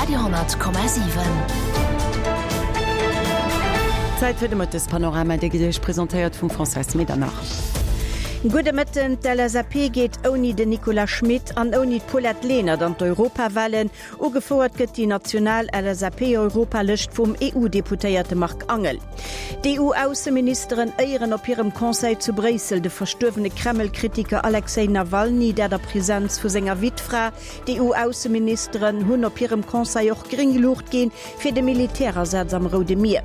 Radio,7. Zäit fir de Mëttespanorama, dee gëtt Iech presentéiert vum Françoise Medernach. Gudde Mëtten. D'LSAP geet ouni den Nicolas Schmit an ouni d'Paulette Lenert an d'Europawahlen. Ugefouert gëtt déi national LSAP-Europalëscht vum EU-Deputéierte Marc Angel. D'EU-Ausseministeren éieren op hirem Conseil zu Bréissel de verstuerwene Kreml-Kritiker Alexej Nawalny, dat a Presenz vu senger Wittfra. D'EU-Ausseministeren hunn op hirem Conseil och gréng Luucht ginn fir de Militärasaz am Roude Mier.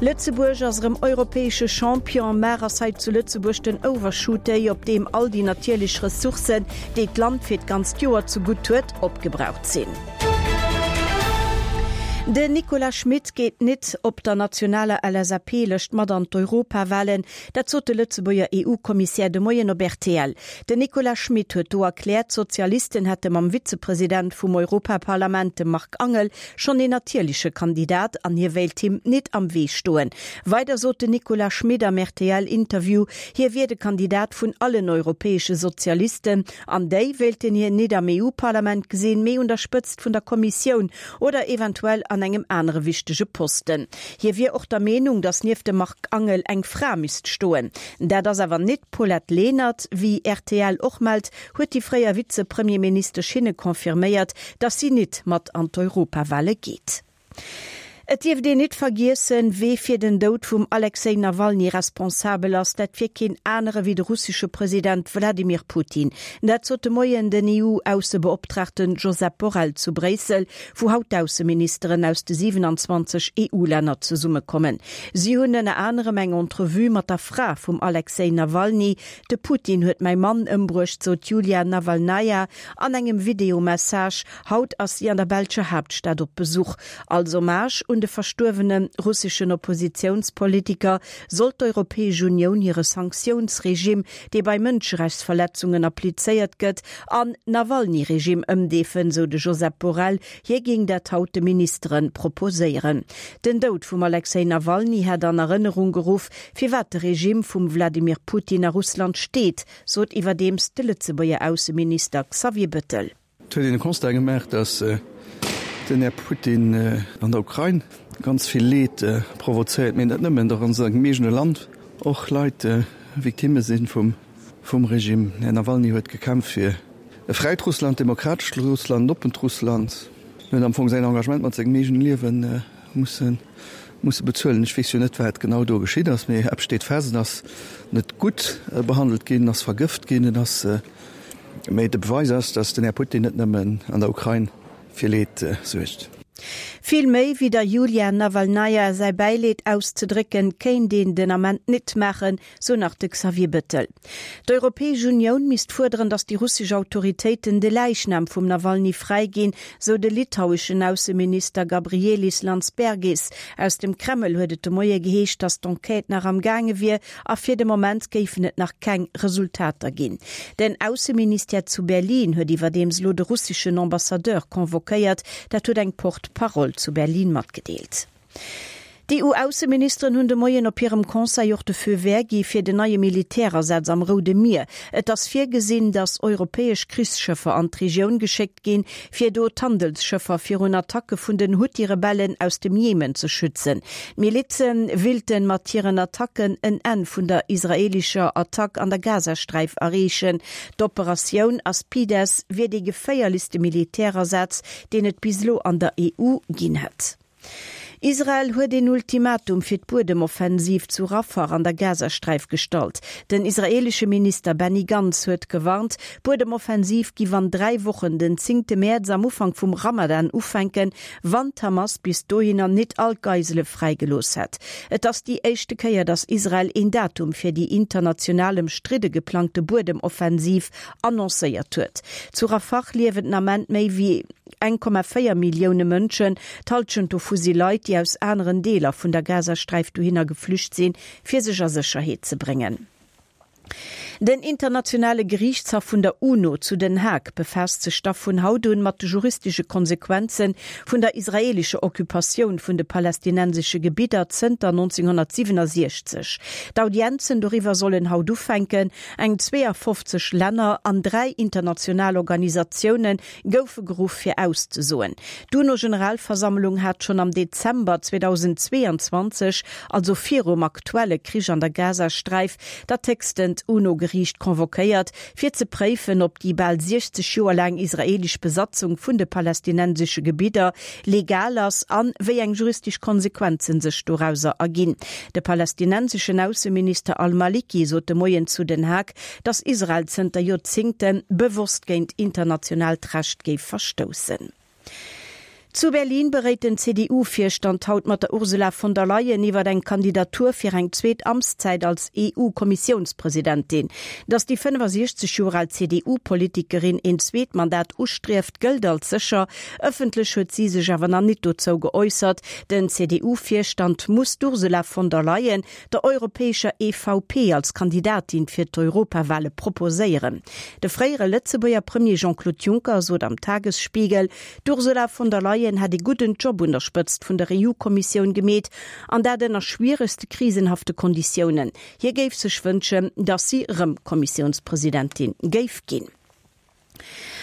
Lëtzebuerg ass erëm europäesche Champion. Mar ass hei zu Lëtzebuerg den Overshoot Day, op deem all déi natierlech Ressourcen, déi d'Land fir d'ganzt Joer ze gutt huet, opgebraucht sinn. Den Nicolas Schmit geet nit op der nationaler LSAP-Lëscht mat an d'Europawahlen. Dat sot de Lëtzebuerger EU-Kommissär de Moien op rtl. Den Nicolas Schmit huet do erkläert, d'Sozialisten hätte mam Vizepresident vum Europaparlament, dem Marc Angel, schonn een natierleche Kandidat an hie wéilt him nit am Wee stoen. Weider sot den Nicolas Schmit am RTL-Interview, hie wier de Kandidat vun allen europäesche Sozialisten an déi wéilten hien nit am EU-Parlament gesinn, mee un der Spëtzt vun der Kommissioun oder eventuell an engem anere wichtege Posten. Hie wier och der Meenung, datt nieft dem Marc Angel eng Fra misst stoen. Dat ass awer nit d'Paulette Lenert. Wéi rtl och mellt, huet déi fréier Vize-Premierministesch hinne confirméiert, datt si nit mat an d'Europawale geet. Et dierft een nit vergiessen, wee fir den Doud vum Alexej Nawalny responsabel ass. Dat wier keen anere wéi de russesche President Wladimir Putin. Dat sot de Moien den EU-Aussebeoptraagten Josep Borrell zu Bréissel, wou haut d'Ausseministeren aus de 27 EU-Länner zesummekommen. Si hunn ënner anerem eng Entrevue mat der Fra vum Alexej Nawalny, De Putin huet mäi Mann ëmbruecht, sot d'Julia Nawalnaja an engem Videomessage. Haut ass si an der belscher Haaptstad op Besuch. Als Hommage un de verstuerwene russeschen Oppositiounspolitiker soll d'Europäesch Unioun hire Sanktiounsregime, dee bei Mënscherechtsverletzungen applizéiert gëtt, an Nawalny-Regime ëmdeefen, sou de Josep Borrell. Hie géing dat haut de Ministere proposéieren. Den Doud vum Alexej Nawalny hätt an Erënnerung geruff, Firwat de Regime vum Wladimir Putin a Russland steet, sot iwwerdeems de Lëtzebuerger Ausseminister Xavier Bettel. Et huet een de Constat gemaach, datt den Här Putin an der Ukrain ganz vill Leed provozéiert, mee net nëmmen, datt an sengem eegene Land och Leit Victimme si vum Regime. Den Här Nawalny huet gekämpft fir e fräit Russland, demokratescht Russland, en oppent Russland. En huet am Fong säin Engagement mat sengem eegene Liewe musse musse bezuelen. Ech weess jo net, wat genau do geschitt ass, mee eppes steet fest, En ass net gutt behandelt ginn, en ass vergëft ginn, en ass, mee de Beweis ass, datt den Här Putin net nëmmen an der Ukrain fir Leed suergt. Vill méi wéi der Julia Nawalnaja säi Bäileed auszedrécken, kéint een den Ament nit maachen, sou nach de Xavier Bettel. D'Europäesch Unioun misst fuerderen, datt déi russesch Autoritéiten de Läichnam vum Nawalny fräiginn, sou de litaueschen Ausseminister Gabrielis Landsbergis. Aus dem Kreml huet et de Moie geheescht, datt d'Enquête nach am gaange wier a fir de Moment géifen et nach keng Resultater ginn. Den Ausseministère zu Berlin huet iwwerdeems elo de russeschen Ambassadeur convoquéiert. Dat huet eng Porte-parole zu Berlin matgedeelt. D'EU-Ausseministeren hunn de Moien op hirem Conseil och de Feu vert gi fir den neie Militärasaz am Roude Mier. Et ass virgesinn, datt europäesch Krichsschëffer an d'Regioun geschéckt ginn, fir do d'Handelsschëffer virun Attacke vun den Huthi-Rebellen aus dem Jemen ze schützen. D'Milize willten mat hiren Attacken en Enn vun der israelischer Attack an der Gazasträif erreechen. D'Operatioun Aspides wier dee geféierlechste Militärasaz, deen et bis elo an der EU ginn hätt. Israel huet een Ultimatum fir d'Buedemoffensiv zu Rafah an der Gazasträif gestallt. Den israeelesche Minister Benny Gantz huet gewarnt, d'Buedemoffensiv giff an 3 Wochen, den zéngte Mäerz am Ufank vum Ramadan ufänken, wann d'Hamas bis dohinner nit all d'Geisele fräigelooss hätt. Et ass déi éischte Kéier, datt Israel een Datum fir déi international ëmstridde geplangte Buedemoffensiv annoncéiert huet. Zu Rafah liewen den Ament méi wéi 1,4 Millioune Mënschen, d'Hallschent dovu si Leit, déi aus aneren Deeler vun der Gazasträif dohinner geflücht sinn, fir sech a Sécherheet ze bréngen. Den internationale Geriichtshaff vun der UNO zu Den Haag befaasst sech da vun haut un mat de juristesche Konsequenze vun der israeelescher Occupatioun vun de palästinensesche Gebidder zënter 1967. D'Audienzen doriwwer sollen haut ufänken. Eng 52 Länner an 3 international Organisatioune goufe geruff fir auszesoen. D'UNO-Generalversammlung hat schonn am Dezember 2022, also virum aktuelle Krich an der Gazasträif, dat héchstent UNO-Geriicht convoquéiert, fir ze préifen, ob déi bal 60 Joer laang israeelesch Besatzung vun de palästinensesche Gebidder legal ass an wéi eng juristesch Konsequenzen sech dorauser erginn. De palästinenseschen Ausseminister al-Maliki sot de Moien zu Den Haag, datt Israel zënter Joerzéngte bewosst géint internationaalt Recht géif verstoussen. Zu Berlin beréit den CDU-Virstand haut mat der Ursula von der Leyen iwwer eng Kandidatur fir eng zweet Amtszäit als EU-Kommissiounspresidentin. Datt déi 65 Joer al CDU-Politikerin een zweet Mandat ustrieft, gëllt als sécher. Ëffentlech huet si sech awer nach nit dozou geäussert. Den CDU-Virstand muss d'Ursula von der Leyen der europäescher EVP als Kandidatin fir d'Europawale proposéieren. De fréiere Lëtzebuerger Premier Jean-Claude Juncker sot am Tagesspiegel, d'Ursula von der Leyen hätt ee gudden Job un der Spëtzt vun der EU-Kommissioun gemeet, an dat ënner schwieregste krisenhafte Konditiounen. Hie géif sech wënschen, datt si rëm Kommissiounspresidentin géif ginn.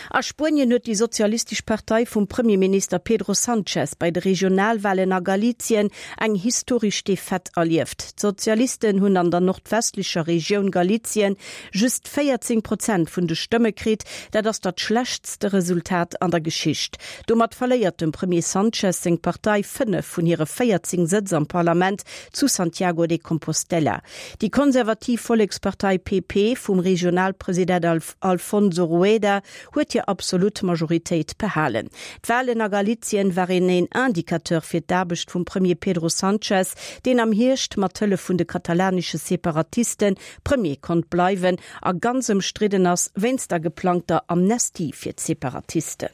A Spuenien huet déi sozialistesch Partei vum Premierminister Pedro Sanchez bei de Regionalwalen a Galicien eng historesch Defaite erlieft. D'Sozialisten hunn an der nordwestlecher Regioun Galicien just 14 Prozent vun de Stëmme kritt. Dat ass dat schlechtste Resultat an der Geschicht. Domat verléiert dem Premier Sanchez seng Partei 5 vun hire 14 Sëtz am Parlament zu Santiago de Compostela. Déi konservativ Vollekspartei PP vum Regionalpresident Alfonso Rueda huet hir absolut Majoritéit behalen. D'Walen a Galizien waren een Indicateur fir d'Aarbecht vum Premier Pedro Sanchez, deen am Hierscht mat Hëllef vun de katalanesche Separatiste Premier konnt bleiwen a ganz ëmstridden ass wéinst der geplangter Amnestie fir d'Separatisten.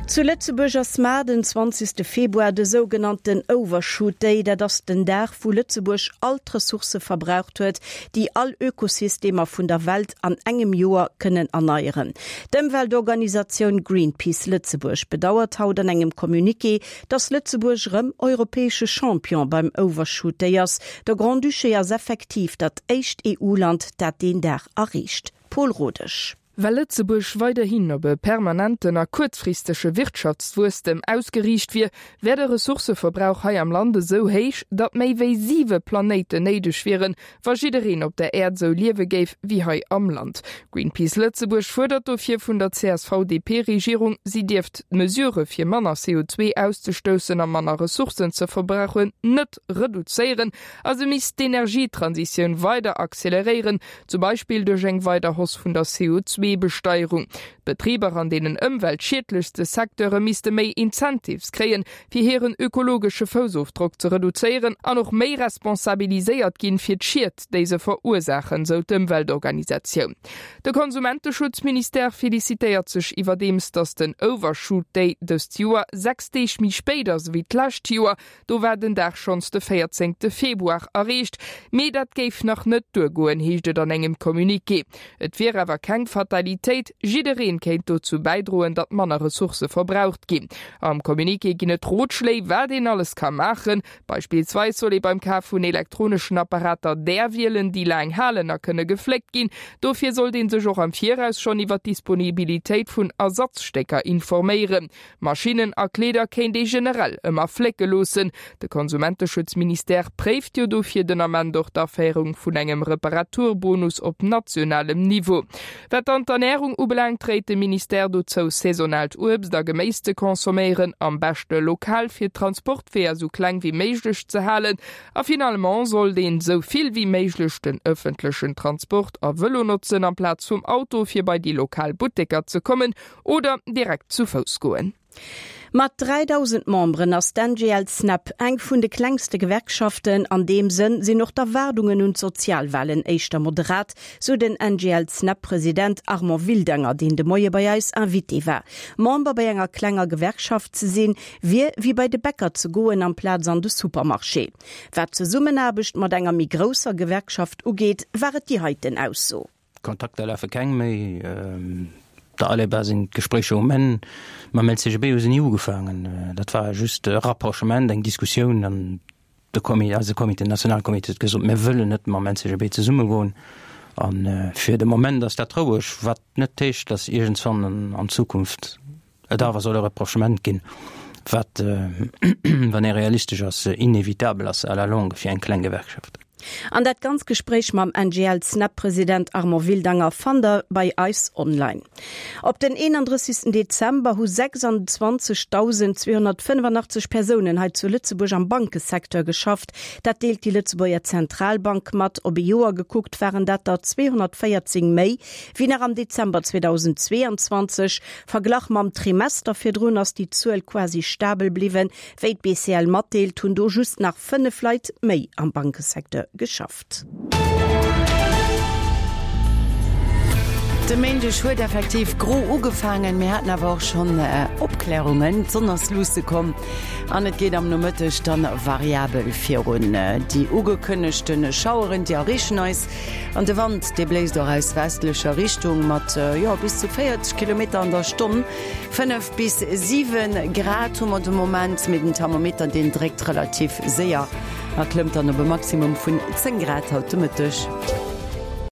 Zu Lëtzebuerg ass mar den 20. Februar de sougenannten Overshoot Day. Dat ass den Dag, wou Lëtzebuerg all d'Ressourcë verbraucht huet, déi all Ökosystemer vun der Welt an engem Joer kënnen erneieren. D'Ëmweltorganisatioun Greenpeace Lëtzebuerg bedauert haut an engem Communiqué, dass Lëtzebuerg erëm europäesche Champion beim Overshoot Day ass. De Grand-Duché ass effektiv dat éischt EU-Land, dat deen Dag erreecht. Paul Rodesch. Well Lëtzebuerg weiderhin op e permanenten a kuerzfristege Wirtschaftswuesstem ausgeriicht wier, wär de Ressourcëverbrauch hei am Land esou héich, datt méi wéi siwe Planéiten néideg wieren, wa jiddereen op der Äerd esou liewe géif wéi hei am Land. Greenpeace Lëtzebuerg fuerdert dofir vun der CSV-DP-Regierung, si dierft d'Mesurë fir manner CO2 auszestoussen a manner Ressourcen ze verbrauchen net reduzéieren a se misst d'Energietransitioun weider acceleréieren, Zum Beispill duerch eng weider Hausse vun der CO2-Besteierung. D'Betriber an deenen ëmweltschiedlechste Secteure misste méi Incentives kréien, fir hiren ökologesche Foussofdrock ze reduzéieren an och méi responsabiliséiert ginn fir d'Schied, déi se verursaachen, sou d'Ëmweltorganisatioun. De Konsumenteschutzministère felicitéiert sech iwwerdeems, datt den Overshoot Day dëst Joer 6 Deeg méi spéit ass ewéi d'lescht Joer. Do war den Dag schonns de 14 Februar erreecht, mee dat géif nach net duergoen, heescht et an engem Communiqué. Et wier awer keng Fatalitéit, jiddereen kéint dozou bäidroen, datt manner Ressourcë verbraucht ginn. Am Communiqué ginn et Rotschléi, wat een alles ka maachen. Beispillsweis soll ee beim Kaf vun elektroneschen Apparater där wielen, déi laang halen a kënne gefléckt ginn. Dofir sollt ee sech och am Viraus schonn iwwer d'Disponibilitéit vun Ersatzstécker informéieren. Maschinnen a Kleeder kéint ee generell ëmmer flécke loossen. De Konsumenteschutzministère préift jo dofir den Ament och d'Aféierung vun engem Reparaturbonus op nationalem Niveau. Wat dann d'Ernärung ubelaangt, réit de Ministère dozou, saisonaalt Uebst a Geméis ze consomméieren, am beschte lokal, fir d'Transportweeër sou kleng wéi méiglech ze halen. A finalement sollt een sou vill wéi méiglech den ëffentlechen Transport a Vëlo notzen amplaz vum Auto, fir bei déi lokal Butteker ze kommen Oder direkt zu Fouss goen. Mat 3.000 Memberen ass d'NGL-Snep eng vun de klengste Gewerkschaften. An deem Sënn sinn och d'Erwaardungen un d'Sozialwalen éischter moderat, sou den NGL-Snep-President Armand Wildanger, deen de Moie bei eis Invité war. Member bei enger klenger Gewerkschaft ze sinn, wier wéi bei de Bäcker ze goen amplaz an de Supermarché. Wat d'Zesummenaarbecht mat enger méi grousser Gewerkschaft ugeet, war et déi heiten Ausso. Kontakter lafe keng méi. Der Aleba sinn d'Gespréicher um Enn. Mam LCGB hu se ni ugefaangen. Dat war just e Rapprochement, eng Diskussioun an de Comité, eise Comité, den Nationalcomité huet gesot, mir wëllen net mam LCGB zesummegoen. A fir de Moment ass dat roueg, wat net heescht, datt iergendswann an Zukunft et awer soll e Rapprochement ginn, wat, wann ee realistesch ass, inevitabel ass à la longue fir eng kleng Gewerkschaft. An dat ganz Gespréich mam NGL-Snep-President Armand Wildanger fannt der bei eis online. Op den 31 Dezember hu 26.285 Persounen hei zu Lëtzebuerg am Bankesecteur geschafft. Dat deelt déi Lëtzebuerger Zentralbank mat. Op e Joer gekuckt waren dat der 214 méi wéi nach am Dezember 2022. Verglach mam Trimester virdrun ass déi Zuel quasi stabel bliwwen. Wéi d'BCL matdeelt, hunn do just nach 5 Leit méi am Bankesecteur geschafft. De Méindeg huet effektiv gro ugefaangen, mir haten awer och schonn Opklärungen. D'Sonn ass luusse komm an et geet am Nomëtteg dann variabel virun. Déi ugekënnegte Schaueren, déi erreechen eis An de Wand, dee bléist och aus westlecher Richtung mat, jo, bis zu 40 Kilometer an der Stonn. 5 bis 7 Grad hu mer de Moment, mee den Thermometer, deen dréckt relativ séier a klëmmt dann op e Maximum vun 10 Grad haut de Mëtteg.